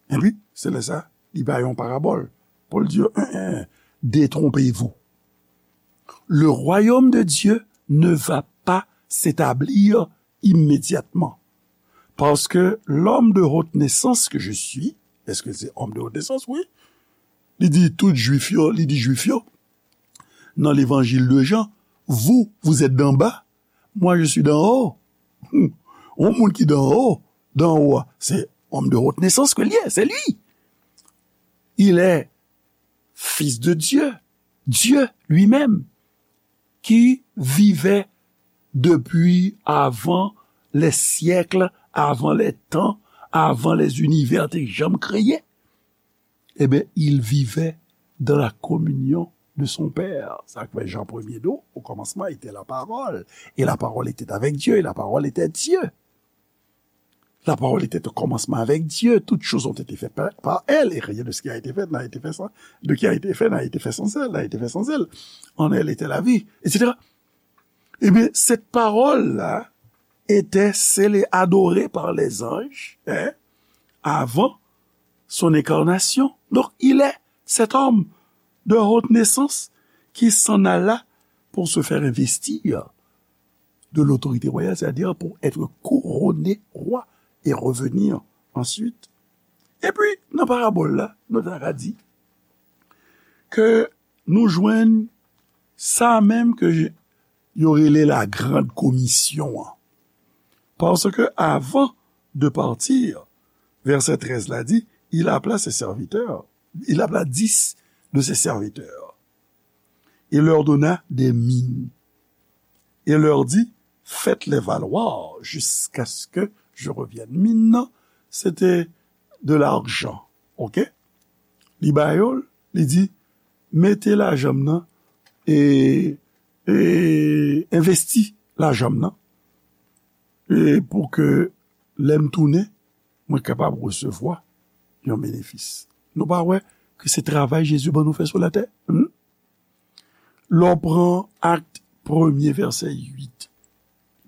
Epi, se lè sa, li bay yon parabòl pou l di yo, en, en, détrompez-vous. Le royaume de Dieu ne va pas s'établir immédiatement. Parce que l'homme de haute naissance que je suis, èske se homme de haute naissance? Wi. Li di tout Jwif yo, li di Jwif yo, nan levanjil de Jan, vous, vous êtes d'en bas, moi, je suis d'en haut. Hmm. Yon moun ki d'en haut, d'en haut, se homme de haute naissance ke li ye, se li. Il est fils de Dieu, Dieu lui-même, qui vivait depuis avant les siècles, avant les temps, avant les univers te janm kreye. Eh bien, il vivait dans la communion de son Père. Sa k fè Jan premye di w, au commencement était la parole, et la parole était avec Dieu, et la parole était Dieu. La parole était au commencement avec Dieu, toutes choses ont été faites par, par elle, et rien de ce qui a été fait n'a été fait sans, de qui a été fait n'a été fait sans elle, n'a été fait sans elle. En elle était la vie, et cetera. Eh bien, cette parole-là était celle adorée par les anges, hein, avant son incarnation. Donc, il est cet homme de haute naissance qui s'en alla pour se faire investir de l'autorité royale, c'est-à-dire pour être couronné roi et revenir ensuite. Epi, nan parabòl la, nou ta ka di ke nou jwenn sa menm ke yo rele la grande commission an. Parce que avant de partir, verset treize la di, il appela ses serviteurs, il appela dix de ses serviteurs. Il leur donna des mines. Et leur dit, faites-les valoir jusqu'à ce que je revienne. Min nan, se te de l'argent, ok? Li ba yo l, li di, mete lajan m nan, e, e envesti lajan m nan, e pou ke lè m tounen, mwen kapab resevwa yon benefis. Nou pa wè ke se travay Jezi ban nou fè sou latè? Hmm? Lè w pran Akt premye, vèsè uit,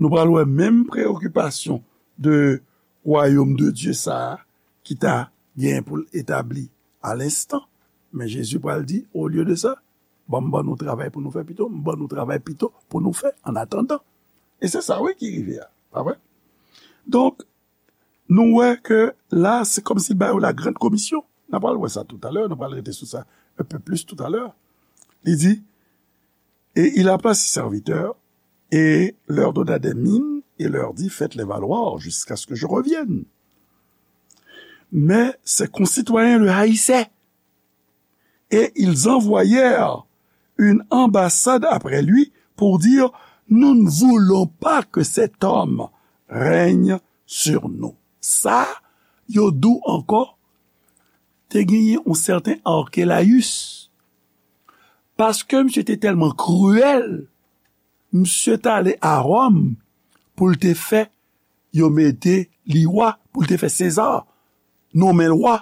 nou pral wè menm preyokipasyon de wayòm de Dye sa a ki ta gen pou l etabli a lenstan. Men Jezi pral di, olye de sa, ban m ban nou travay pou nou fè pito, m ban nou travay pito pou nou fè, an atandan. E se sa, wi, ki rive a, pa vre? Donk, nou wè ke la, se kòmsi l ba yo la grande commission. N a pral wè sa toutalè, nou pral rete sou sa un peu plus toutalè. Li di, Et il appela ses serviteurs et leur donna des mines et leur dit, faites-les valoir jusqu'à ce que je revienne. Mais ses concitoyens le haïssaient. Et ils envoyèrent une ambassade après lui pour dire, nous ne voulons pas que cet homme règne sur nous. Sa, yo di w ankò, te genyen yon sèten Arkélaüs. Paske misye te tèlman kriyèl, misye t ale a Wòm pou l te fè yo mete li wa, pou l te fè Seza nonmen l wa.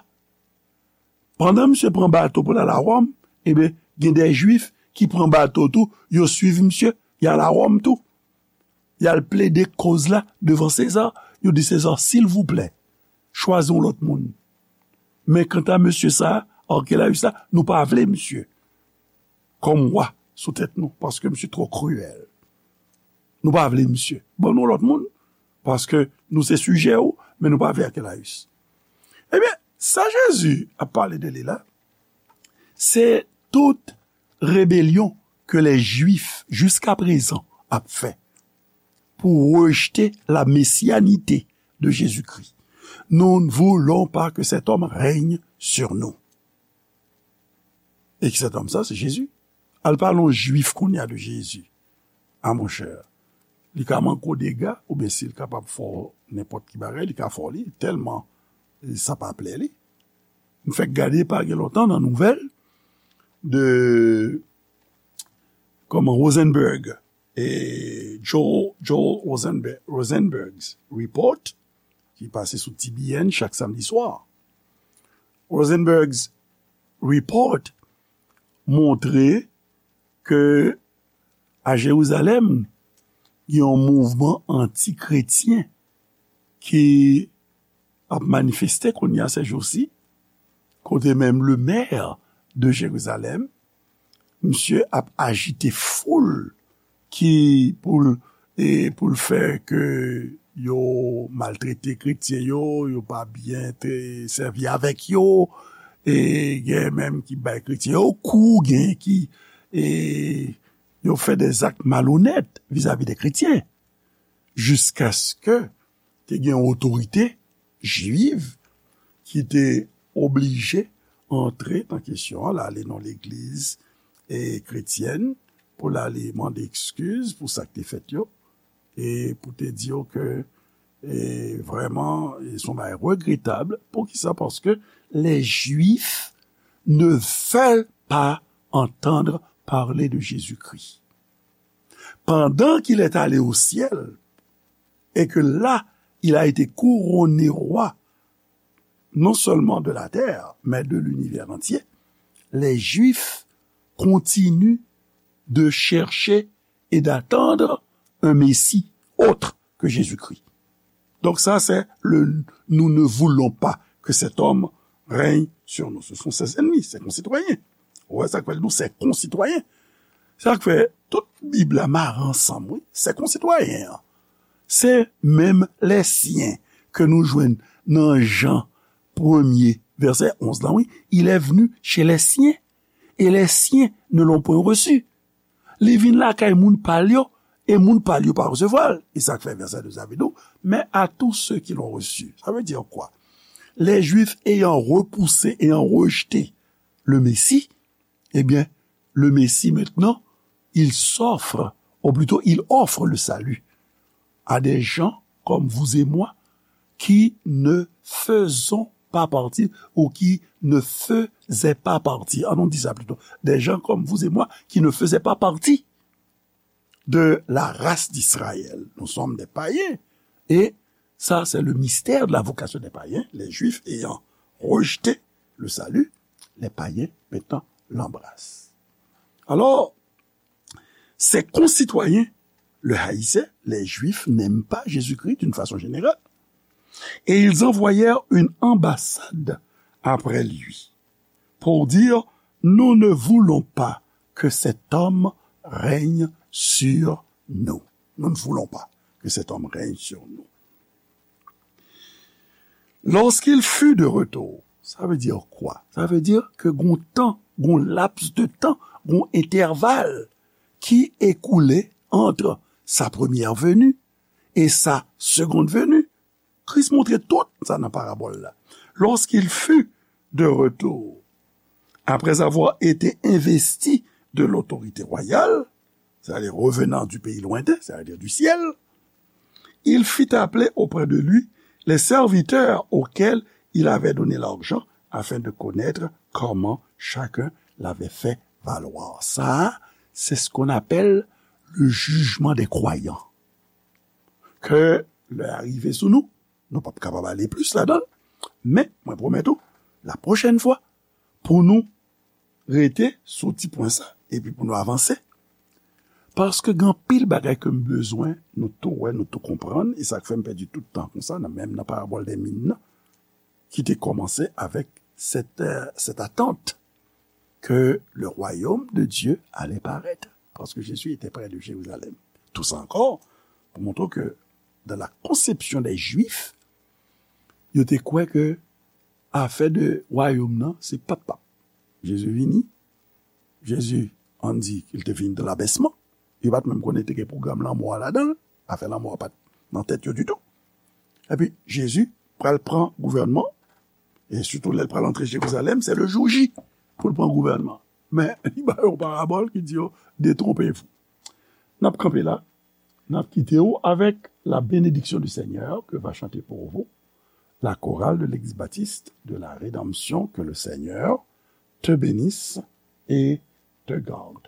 Pandan misye pran bato pou l al a Wòm, ebyen, gen de Jwif ki pran bato tou, yo swiv misye, y al a Wòm tou. Y al plede koz la devan Seza. Yo di Seza, silvouplè, chwazi yon lòt moun. Men kanta mesye sa, Arkélaüs la, nou pa vle misye kòm wa sou tèt nou, paske misye twò kriyèl. Nou pa vle misye. Ban nou lòt moun, paske nou se sijè w, men nou pa vle Arkélaüs. Ebyen, sa Jezi ap pale de li la, se tout rebelyon ke lè Jwif jiska prezan ap fè pou rejte la messianité de Jésus-Christ. Nous ne voulons pas que cet homme règne sur nous. E ki sèt òm sa, se Jezi. Al pale yon Jwif kounye a de Jezi. A monchè, li ka manke w dega, oubyen si l kapab fè w nenpòt ki bagay, li ka fè w li, tèlman sa pa plè li. M fèk gade pa gen lontan nan nouvèl de, kòman, Rosenberg, e Joel, Joel Rosenberg, Rosenberg's Report, ki pase sou T B N chak samdi swa. Rosenberg's Report montre ke a Jerizalèm, gen yon mouvman anti-kretyen ki ap manifeste kounye a sèjousi, kote menm le maire de Jerizalèm, misye ap ajite foul ki pou l, e pou l fè ke yo maltrete kretyen yo, yo pa byen te sèvi avèk yo, e gen menm ki bay kretyen yo kou, gen ki, e yo fè de zak malonèt vizavi de kretyen, jiskaske te gen otorite jwiv ki te oblije antre nan kesyon an, l ale nan legliz, e, kretyèn, pou l ale mande ekskiz pou sa k te fèt yo, e pou te di yo ke, e, vrèman, e, se yon bagay regretab. Poukisa? Paske les Juifs ne veulent pas entendre parler de Jésus-Christ. Pendant qu'il est allé au ciel, et que là, il a été couronné roi, non seulement de la terre, mais de l'univers entier, les Juifs continuent de chercher et d'attendre un Messie autre que Jésus-Christ. Donc ça, c'est le nous ne voulons pas que cet homme règne sur nous. Ce sont ses ennemis, ses concitoyens. Ou wè sa k fè l di w, ses concitoyens. Sa k fè tout Bib la mare ansanm, wi. Ses concitoyens an. Se menm les siens ke nou jwenn nan Jan premye, vèsè onz la, wi. Il est venu chez les siens, et les siens ne l'ont point reçu. Li vin lakay moun pa l yo, e moun pa l yo pa resevwa l. E sa k fè vèsè douz la vin di w, mais à tous ceux qui l'ont reçu. Ça veut dire quoi? Les Juifs ayant repoussé, ayant rejeté le Messie, eh bien, le Messie maintenant, il s'offre, ou plutôt, il offre le salut à des gens comme vous et moi qui ne faisons pas partie ou qui ne faisaient pas partie. Ah non, on dit ça plutôt. Des gens comme vous et moi qui ne faisaient pas partie de la race d'Israël. Nous sommes des païens. Et ça, c'est le mystère de la vocation des païens. Les Juifs ayant rejeté le salut, les païens maintenant l'embrassent. Alors, ses concitoyens le haïssaient, les Juifs n'aiment pas Jésus-Christ d'une façon générale, et ils envoyèrent une ambassade après lui pour dire, nous ne voulons pas que cet homme règne sur nous. Nous ne voulons pas que cet homme règne sur nous. Lorsqu'il fut de retour, sa vle di kwa? Sa vle di ke gon tan, gon laps de tan, gon entèval ki écoulé entre sa première venue et sa seconde venue. Kris montre tout sa nan parabòl la. Lorsqu'il fut de retour, après avoir été investi de l'autorité royale, c'est-à-dire revenant du pays lointain, c'est-à-dire du ciel, il fit appeler auprès de lui les serviteurs auxquels il avait donné l'argent afin de connaître comment chacun l'avait fait valoir. Sa, c'est ce qu'on appelle le jugement des croyants. Ke lè a rive sou nou, nou p ap kapab ale plis ladan l, men mwen pwomèt ou, la pwochèn fwa, pou nou rete sou ti pwen sa, epi pou nou avanse. Paske gen anpil bagay ke m bezwen nou tou wè, nou tou konprann, e sa k fè m pèdi tout tan konsa, nan, menm nan parabòl dè min nan, ki te kòmanse avèk cette, euh, cette attente que le royaume de Dieu allait paraître. Parce que Jésus était près de Jérusalem. Tout sa ankò, pou montre ke dans la conception des Juifs, yo te kwè ke afè de wayòm nan, se p ap p ap. Jezi vini, Jezi, ann di ke l te vini dans l'abaissement. Yo pa t menm konnen te gen pwogram lanmò a ladan l. Afè lanmò a pa t nan tèt yo ditou. Epi, Jezi pral pran gouvènman, e sitou lè l pral antre Jerizalèm, se le jour J pou l pran gouvènman. Men, li ba yo yon parabòl ki di yo, détrompez-vous. N ap kanpe la, n ap kite w avec la bénédiction du Seigneur que va chanter pour vous la chorale de l'Église baptiste de la Rédemption. Que le Seigneur te bénisse et te garde.